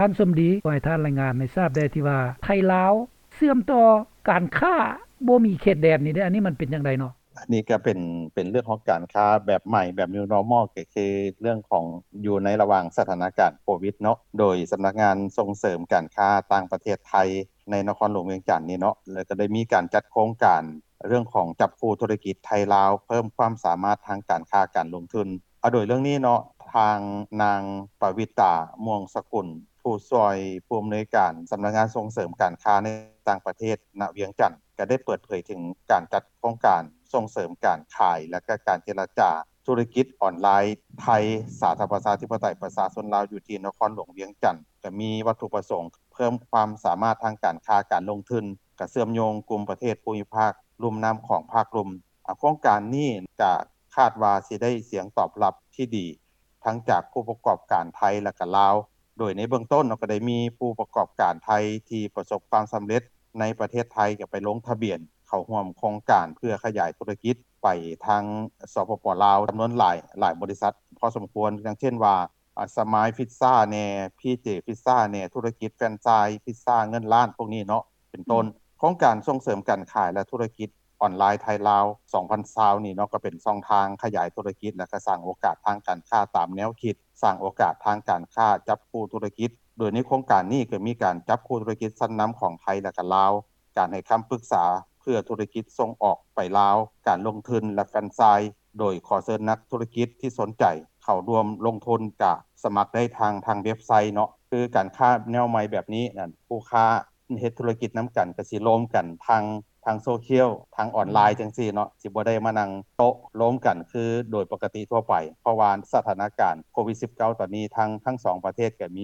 ທ່ານສົມດີ ຂໍໃຫ້ທ່ານລາຍງານໃຫ້ຊາບແດ່ ທີ່ວ່າໄທລາວເຊື່ອມຕໍ່ການຄ້າບໍ່ມີເຂດແດນນີ້ເດ້ ອັນນີ້ມັນເປັນຈັ່ງໃດເນາະ? ອັນນີ້ກໍເປັນ ເປັນເລື່ອງຂອງການຄ້າແບບໃໝ່ ແບບ New Normal ກໍຄືເລື່ອງຂອງ ຢູ່ໃນລະຫວ່າງສະຖານະການໂຄວິດເນາະ ໂດຍສຳນັກງານສົ່ງເສີມການຄ້າຕ່າງປະເທດໄທ ໃນນະຄອນຫຼວງວຽງຈັນນີ້ເນາະ ແລ້ວກໍໄດ້ມີການຈັດໂຄງການເລື່ອງຂອງຈັບຄູ່ທຸລະກິດໄທລາວ ເພີ່ມຄວາມສາມາດທາງການຄ້າການລົງທຶນ. ອາ ໂດຍເລື່ອງນີ້ເນາະ ທາງນາງ ປະວິຕາ ມ່ວງສະກຸນ ຜູ້ຊ່ວຍຜູ້ອຳນວຍການສຳນັກງານສົ່ງເສີມການຄ້າໃນຕ່າງປະເທດ ນະວຽງຈັນ ກໍໄດ້ເປີດເຜີຍເຖິງການຈັດໂຄງການສົ່ງເສີມການຂາຍ ແລະ ກະການເຈລະຈາທຸລະກິດອອນລາຍ ໄທ ສາທາລະນະລັດ ປະຊາທິປະໄຕ ປະຊາຊົນລາວ ຢູ່ທີ່ນະຄອນຫຼວງວຽງຈັນ ກໍມີວັດຖຸປະສົງເພີ່ມຄວາມສາມາດທາງການຄ້າການລົງທຶນ, ກະເຊື່ອມໂຍງກຸ່ມປະເທດພູມີພາກລຸ່ມນ້ຳຂອງພາກລຸ່ມ. ອາ ໂຄງການນີ້ກະຄາດວ່າຊິໄດ້ສຽງຕອບຮັບທີ່ດີ ທັງຈາກຜູ້ປະກອບການໄທ ແລະ ກະລາວ. ໂດຍໃນເບື້ອງຕົ້ນເນາະ ກໍໄດ້ມີຜູ້ປະກອບການໄທທີ່ປະສົບຄວາມສຳເລັດໃນປະເທດໄທ ກໍໄປລົງທະບຽນເຂົ້າຮ່ວມໂຄງການເພື່ອຂະຫຍາຍທຸລະກິດໄປທາງ ສປປ ລາວ ຈຳນວນຫຼາຍ ຫຼາຍບໍລິສັດພໍສົມຄວນ ຢ່າງເຊັ່ນວ່າ ອາ ສະມາຍພິດຊາແນ່ ພີເຈພິດຊາແນ່ ທຸລະກິດແຟຣນໄຊ ພິດຊາເງິນລ້ານ ພວກນີ້ເນາະ ເປັນຕົ້ນ. ໂຄງການສົ່ງເສີມການຂາຍ ແລະ ທຸລະກິດ ອອນລາຍໄທລາວ ສອງພັນຊາວນີ້ເນາະ ກໍເປັນຊ່ອງທາງຂະຫຍາຍທຸລະກິດ ແລະ ກະສ້າງໂອກາດທາງການຄ້າຕາມແນວຄິດ ສ້າງໂອກາດທາງການຄ້າຈັບຄູ່ທຸລະກິດ. ໂດຍໃນໂຄງການນີ້ກໍມີການຈັບຄູ່ທຸລະກິດຊັ້ນນຳຂອງໄທ ແລະ ກະລາວ, ການໃຫ້ຄຳປຶກສາເພື່ອທຸລະກິດສົ່ງອອກໄປລາວ, ການລົງທຶນ ແລະ ແຟຣນໄຊ ໂດຍຂໍເຊີນນັກທຸລະກິດທີ່ສົນໃຈເຂົ້າຮ່ວມລົງທຶນ ກະສະໝັກໄດ້ທາງ ທາງເວັບໄຊເນາະ. ຄືການຄ້າແນວໃໝ່ແບບນີ້ນັ້ນ ຄູ່ຄ້າ ເຮັດທຸລະກິດນຳກັນ ກະຊິລວມກັນທາງ ທາງໂຊຊຽວ ທາງອອນລາຍ ອືມ ຈັ່ງຊີ້ເນາະ ຊິບໍ່ໄດ້ມານັ່ງໂຕະລວມກັນຄືໂດຍປົກກະຕິທົ່ວໄປ ເພາະວ່າສະຖານະການໂຄວິດສິບເກົ້າ ຕອນນີ້ ທັງ ທັງສອງປະເທດກໍມ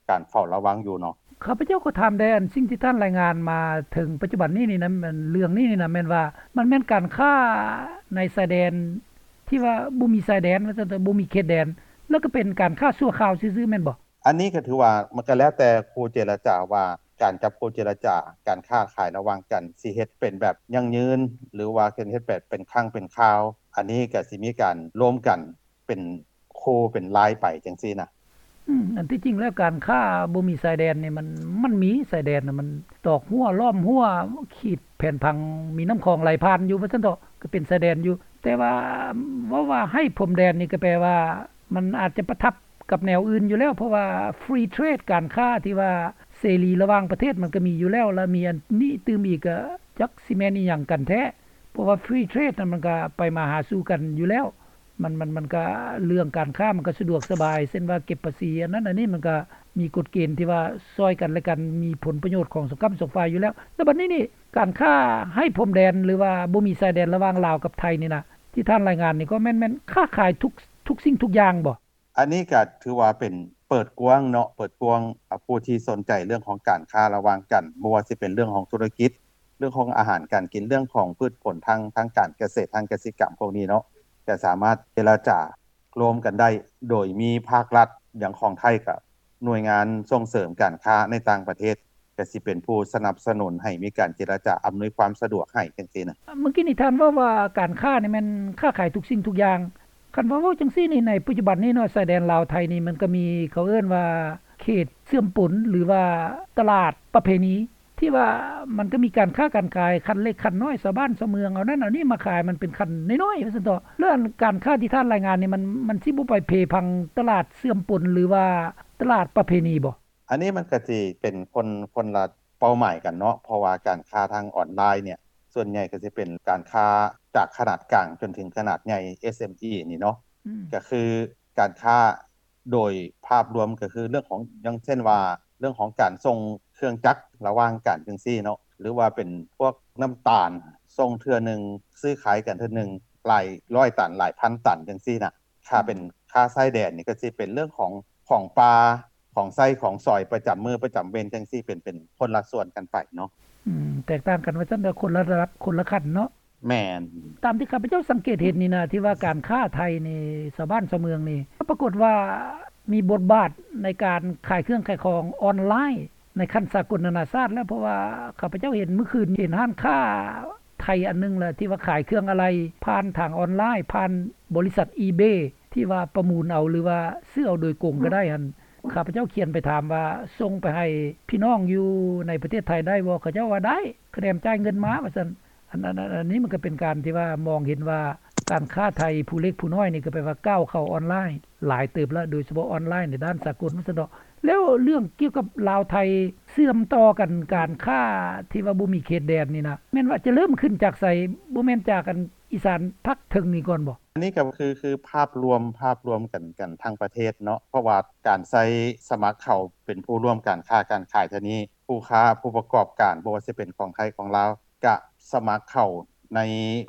ີການເຝົ້າລະວັງຢູ່ເນາະ. ຂ້າພະເຈົ້າຂໍຖາມແດ່ ອັນສິ່ງທີ່ທ່ານລາຍງານມາເຖິງປັດຈຸບັນນີ້ນີ້ນະ ເລື່ອງນີ້ນີ້ນະ ແມ່ນວ່າມັນແມ່ນການຄ້າໃນຊາຍແດນ ທີ່ວ່າບໍ່ມີຊາຍແດນ ວ່າຊັ້ນເຖາະ ບໍ່ມີເຂດແດນ ແລ້ວກໍເປັນການຄ້າຊົ່ວຄາວຊື່ໆ ແມ່ນບໍ່? ອັນນີ້ກໍຖືວ່າມັນກໍແລ້ວແຕ່ຄູ່ເຈລະຈາວ່າ ການຈັບຄູ່ເຈລະຈາ ການຄ້າຂາຍລະຫວ່າງກັນ ຊິເຮັດເປັນແບບຢັ້ງຢືນ ຫຼືວ່າເຮັດແບບເປັນຄັ້ງເປັນຄາວ ອັນນີ້ກໍຊິມີການລວມກັນເປັນຄູ່ເປັນລາຍໄປຈັ່ງຊີ້ນະ. ອືມ ອັນທີ່ຈິງແລ້ວການຄ້າບໍ່ມີຊາຍແດນນີ້ ມັນ ມັນມີຊາຍແດນນະ ມັນຕອກຮົ້ວ ລ້ອມຮົ້ວ ຂີດແຜນຜັງ ມີນ້ຳຂອງໄຫຼຜ່ານຢູ່ ວ່າຊັ້ນເຖາະ ກໍເປັນຊາຍແດນຢູ່ ແຕ່ວ່າເວົ້າວ່າໃຫ້ພົມແດນນີ້ ກໍແປວ່າ ມັນອາດຈະປະທັບກັບແນວອື່ນຢູ່ແລ້ວ ເພາະວ່າ free trade ການຄ້າທີ່ວ່າເສລີລະຫວ່າງປະເທດ ມັນກໍມີຢູ່ແລ້ວ ແລະ ມີອັນນີ້ຕື່ມອີກ ກໍຈັກຊິແມ່ນອີ່ຫຍັງກັນແທ້ ເພາະວ່າ free trade ນັ້ນ ມັນກໍໄປມາຫາສູ່ກັນຢູ່ແລ້ວ ມັນ ມັນ ມັນກໍເລື່ອງການຄ້າ ມັນກໍສະດວກສະບາຍ ເຊັ່ນວ່າເກັບພາສີ ອັນນັ້ນອັນນີ້ ມັນກໍມີກົດເກນທີ່ວ່າຊ່ອຍກັນ ແລະ ກັນ ມີຜົນປະໂຫຍດຂອງສອງຂ້າງສອງຝ່າຍຢູ່ແລ້ວ ແລ້ວບັດນີ້ນີ້ ການຄ້າໄຮ້ພົມແດນ ຫຼືວ່າບໍ່ມີຊາຍແດນລະຫວ່າງລາວກັບໄທນີ້ນະ ທີ່ທ່ານລາຍງານນີ້ ກໍແມ່ນ ແມ່ນຄ້າຂາຍທຸກ ທຸກສິ່ງທຸກຢ່າງບໍ່? ອັນນີ້ກໍຖືວ່າເປັນເປີດກວ້າງເນາະ ເປີດກວ້າງ ອາ ຜູ້ທີ່ສົນໃຈເລື່ອງຂອງການຄ້າລະຫວ່າງກັນ ບໍ່ວ່າຊິເປັນເລື່ອງຂອງທຸລະກິດ ເລື່ອງຂອງອາຫານການກິນ ເລື່ອງຂອງພືດຜົນທາງ ທາງການກະເສດ ທາງກະສິກຳພວກນີ້ເນາະ ກໍສາມາດເຈລະຈາ ລວມກັນໄດ້ ໂດຍມີພາກລັດ ຢ່າງຂອງໄທກໍໜ່ວຍງານສົ່ງເສີມການຄ້າໃນຕ່າງປະເທດ ກໍຊິເປັນຜູ້ສະໜັບສະໜູນໃຫ້ມີການເຈລະຈາ ອຳນວຍຄວາມສະດວກໃຫ້ຈັ່ງຊີ້ນະ. ເມື່ອກີ້ນີ້ທ່ານເວົ້າວ່າການຄ້ານີ້ແມ່ນຄ້າຂາຍທຸກສິ່ງທຸກຢ່າງ. ຄັນວ່າເວົ້າຈັ່ງຊີ້ນີ້ ໃນປັດຈຸບັນນີ້ເນາະ ຊາຍແດນລາວໄທນີ້ ມັນກໍມີ ເຂົາເອີ້ນວ່າເຂດເຊື່ອມປົນ ຫຼືວ່າຕະຫຼາດປະເພນີ ທີ່ວ່າມັນກໍມີການຄ້າການຂາຍຂັ້ນເລັກຂັ້ນນ້ອຍ ຊາວບ້ານຊາວເມືອງເອົານັ້ນເອົານີ້ມາຂາຍ ມັນເປັນຂັ້ນນ້ອຍໆ ວ່າຊັ້ນເຖາະ. ແລ້ວອັນການຄ້າທີ່ທ່ານລາຍງານນີ້ ມັນ ມັນຊິບໍ່ໄປເພພັງຕະຫຼາດເຊື່ອມປົນ ຫຼືວ່າຕະຫຼາດປະເພນີບໍ່? ອັນນີ້ມັນກໍຊິເປັນຄົນ ຄົນລະເປົ້າໝາຍກັນເນາະ ເພາະວ່າການຄ້າທາງອອນລາຍເນ່ຍ ສ່ວນໃຫຍ່ກໍຊິເປັນການຄ້າຈາກຂະໜາດກາງຈົນເຖິງຂະໜາດໃຫຍ່ ເອສເອັມອີ ນີ້ເນາະ ອືມ ກໍຄືການຄ້າ ໂດຍພາບລວມກໍຄືເລື່ອງຂອງ ຢ່າງເຊັ່ນວ່າ ເລື່ອງຂອງການສົ່ງເຄື່ອງຈັກລະຫວ່າງກັນຈັ່ງຊີ້ເນາະ ຫຼືວ່າເປັນພວກນ້ຳຕານ ສົ່ງເທື່ອໜຶ່ງ ຊື້ຂາຍກັນເທື່ອໜຶ່ງ ຫຼາຍຮ້ອຍຕັນ ຫຼາຍພັນຕັນຈັ່ງຊີ້ນະ. ຖ້າເປັນ ອືມ ຄ້າຊາຍແດນນີ້ ກໍຊິເປັນເລື່ອງຂອງ ຂອງປ່າ ຂອງໃຊ້ຂອງສອຍປະຈຳມື້ປະຈຳເວັນຈັ່ງຊີ້ ເປັນ ເປັນຄົນລະສ່ວນກັນໄປເນາະ. ອືມ ແຕກຕ່າງກັນວ່າຊັ້ນເຖາະ ຄົນລະລະດັບ ຄົນລະຂັ້ນເນາະ. ແມ່ນ. ຕາມທີ່ຂ້າພະເຈົ້າສັງເກດເຫັນນີ້ນະ ທີ່ວ່າການຄ້າໄທນີ້ ຊາວບ້ານຊາວເມືອງນີ້ ປາກົດວ່າມີບົດບາດໃນການຂາຍເຄື່ອງຂາຍຂອງອອນລາຍໃນຂັ້ນສາກົນນານາຊາດແລ້ວ ເພາະວ່າຂ້າພະເຈົ້າເຫັນມື້ຄືນ ເຫັນຮ້ານຄ້າໄທອັນໜຶ່ງລະ ທີ່ວ່າຂາຍເຄື່ອງອາໄຫຼ່ຜ່ານທາງອອນລາຍ ຜ່ານບໍລິສັດອີເບ ທີ່ວ່າປະມູນເອົາ ຫຼືວ່າຊື້ເອົາໂດຍກົງກໍໄດ້ຫັ້ນ ຂ້າພະເຈົ້າຂຽນໄປຖາມວ່າ ສົ່ງໄປໃຫ້ພີ່ນ້ອງຢູ່ໃນປະເທດໄທໄດ້ບໍ່? ເຂົາເຈົ້າວ່າໄດ້ ຄະແນນຈ່າຍເງິນມາວ່າຊັ້ນ. ອັນ ອັນ ອັນ ອັນນີ້ມັນກໍເປັນການທີ່ວ່າມອງເຫັນວ່າ ການຄ້າໄທຜູ້ເລັກຜູ້ນ້ອຍນີ້ ກໍແປວ່າກ້າວເຂົ້າອອນລາຍຫຼາຍເຕີບແລ້ວ ໂດຍສະເພາະອອນລາຍໃນດ້ານສາກົນວ່າຊັ້ນເຖາະ. ແລ້ວເລື່ອງກ່ຽວກັບລາວໄທເຊື່ອມຕໍ່ກັນ ການຄ້າທີ່ວ່າບໍ່ມີເຂດແດນນີ້ນະ ແມ່ນວ່າຈະເລີ່ມຂຶ້ນຈາກໃສ? ບໍ່ແມ່ນຈາກອັນອີສານພາກເທິງນີ້ກ່ອນບໍ່? ອັນນີ້ກໍຄື ຄືພາບລວມ ພາບລວມກັນ ກັນທັງປະເທດເນາະ ເພາະວ່າການໃຊ້ສະໝັກເຂົ້າເປັນຜູ້ຮ່ວມການຄ້າການຂາຍເທື່ອນີ້ ຜູ້ຄ້າຜູ້ປະກອບການ ບໍ່ວ່າຊິເປັນຂອງໄທຂອງລາວ ກະສະໝັກເຂົ້າໃນ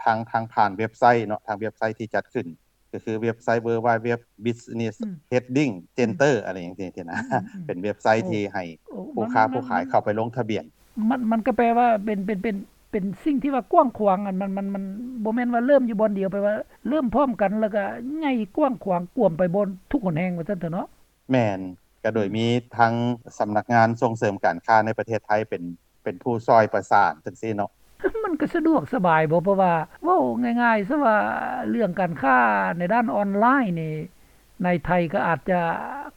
ທາງ ທາງຜ່ານເວັບໄຊເນາະ ທາງເວັບໄຊທີ່ຈັດຂຶ້ນ ກໍຄືເວັບໄຊ World Wide Web Business ອືມ Trading Center ອືມ ອະໄລຈັ່ງຊີ້ນະ ອືມ ອືມ ເປັນເວັບໄຊ ໂອ້ ທີ່ໃຫ້ ໂອ້ ຜູ້ຄ້າ ມັນ ຜູ້ຂາຍ ມັນ ເຂົ້າໄປລົງທະບຽນ. ມັນ ມັນກໍແປວ່າເປັນ ເປັນ ເປັນ ເປັນສິ່ງທີ່ວ່າກວ້າງຂວາງ ອັນ ມັນ ມັນ ມັນບໍ່ແມ່ນວ່າເລີ່ມຢູ່ບ່ອນດຽວ ແປວ່າເລີ່ມພ້ອມກັນ ແລ້ວກໍໃຫຍ່ກວ້າງຂວາງກວມໄປບ່ອນທຸກຫົນແຫ່ງວ່າຊັ້ນເຖາະເນາະ. ແມ່ນ ກໍໂດຍ ອືມ ມີທາງສຳນັກງານສົ່ງເສີມການຄ້າໃນປະເທດໄທເປັນ ເປັນຜູ້ຊ່ອຍປະສານຈັ່ງຊີ້ເນາະ. ມັນກໍສະດວກສະບາຍບໍ່? ເພາະວ່າເວົ້າງ່າຍໆຊະວ່າ ເລື່ອງການຄ້າໃນດ້ານອອນລາຍນີ້ ໃນໄທກໍອາດຈະ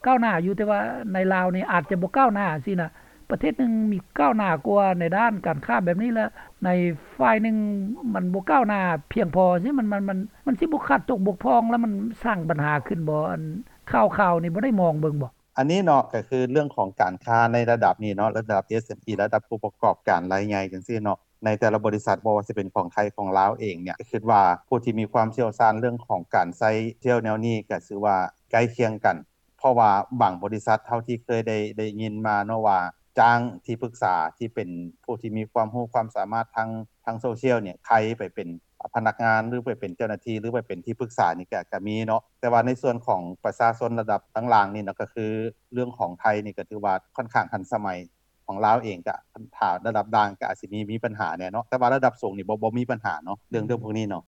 ກ້າວໜ້າຢູ່ ແຕ່ວ່າໃນລາວນີ້ອາດຈະບໍ່ກ້າວໜ້າຊີ້ນະ. ປະເທດໜຶ່ງມີກ້າວໜ້າກວ່າໃນດ້ານການຄ້າແບບນີ້ ແລະ ໃນຝ່າຍໜຶ່ງມັນບໍ່ກ້າວໜ້າພຽງພໍຊີ້ ມັນ ມັນ ມັນ ມັນຊິບໍ່ຂາດຕົກບົກຜ່ອງ ແລ້ວມັນສ້າງບັນຫາຂຶ້ນບໍ່? ອັນຂ່າວໆນີ້ບໍ່ໄດ້ມອງເບິ່ງບໍ່? ອັນນີ້ເນາະ ກໍຄືເລື່ອງຂອງການຄ້າໃນລະດັບນີ້ເນາະ ລະດັບ ເອສເອັມອີ ລະດັບຜູ້ປະກອບການລາຍໃຫຍ່ຈັ່ງຊີ້ເນາະ ໃນແຕ່ລະບໍລິສັດ ບໍ່ວ່າຊິເປັນຂອງໄທຂອງລາວເອງເນ່ຍ ຄິດວ່າຜູ້ທີ່ມີຄວາມຊ່ຽວຊານເລື່ອງຂອງການໃຊ້ໂຊຊຽວແນວນີ້ ກໍຖືວ່າໃກ້ຄຽງກັນ ເພາະວ່າບາງບໍລິສັດເທົ່າທີ່ເຄີຍໄດ້ ໄດ້ຍິນມາເນາະວ່າ ຈ້າງທີ່ປຶກສາທີ່ເປັນຜູ້ທີ່ມີຄວາມຮູ້ຄວາມສາມາດທາງ ທາງໂຊຊຽວນີ້ ໄຂໄປເປັນພະນັກງານ ຫຼື ໄປເປັນເຈົ້າໜ້າທີ່ ຫຼື ໄປເປັນທີ່ປຶກສານີ້ ກໍ ກໍມີເນາະ ແຕ່ວ່າໃນສ່ວນຂອງປະຊາຊົນລະດັບຕ່າງໆນີ້ເນາະ ກໍຄືເລື່ອງຂອງໄທນີ້ ກໍຖືວ່າຂ້ອນຂ້າງທັນສະໄໝ ຂອງລາວເອງ ກໍຖ້າລະດັບກາງກໍອາດຊິມີ ມີບັນຫາແດ່ເນາະ ແຕ່ວ່າລະດັບສູງນີ້ບໍ່ ບໍ່ມີບັນຫາເນາະ ເລື່ອງ ອືມ ເລື່ອງພວກນີ້ເນາະ.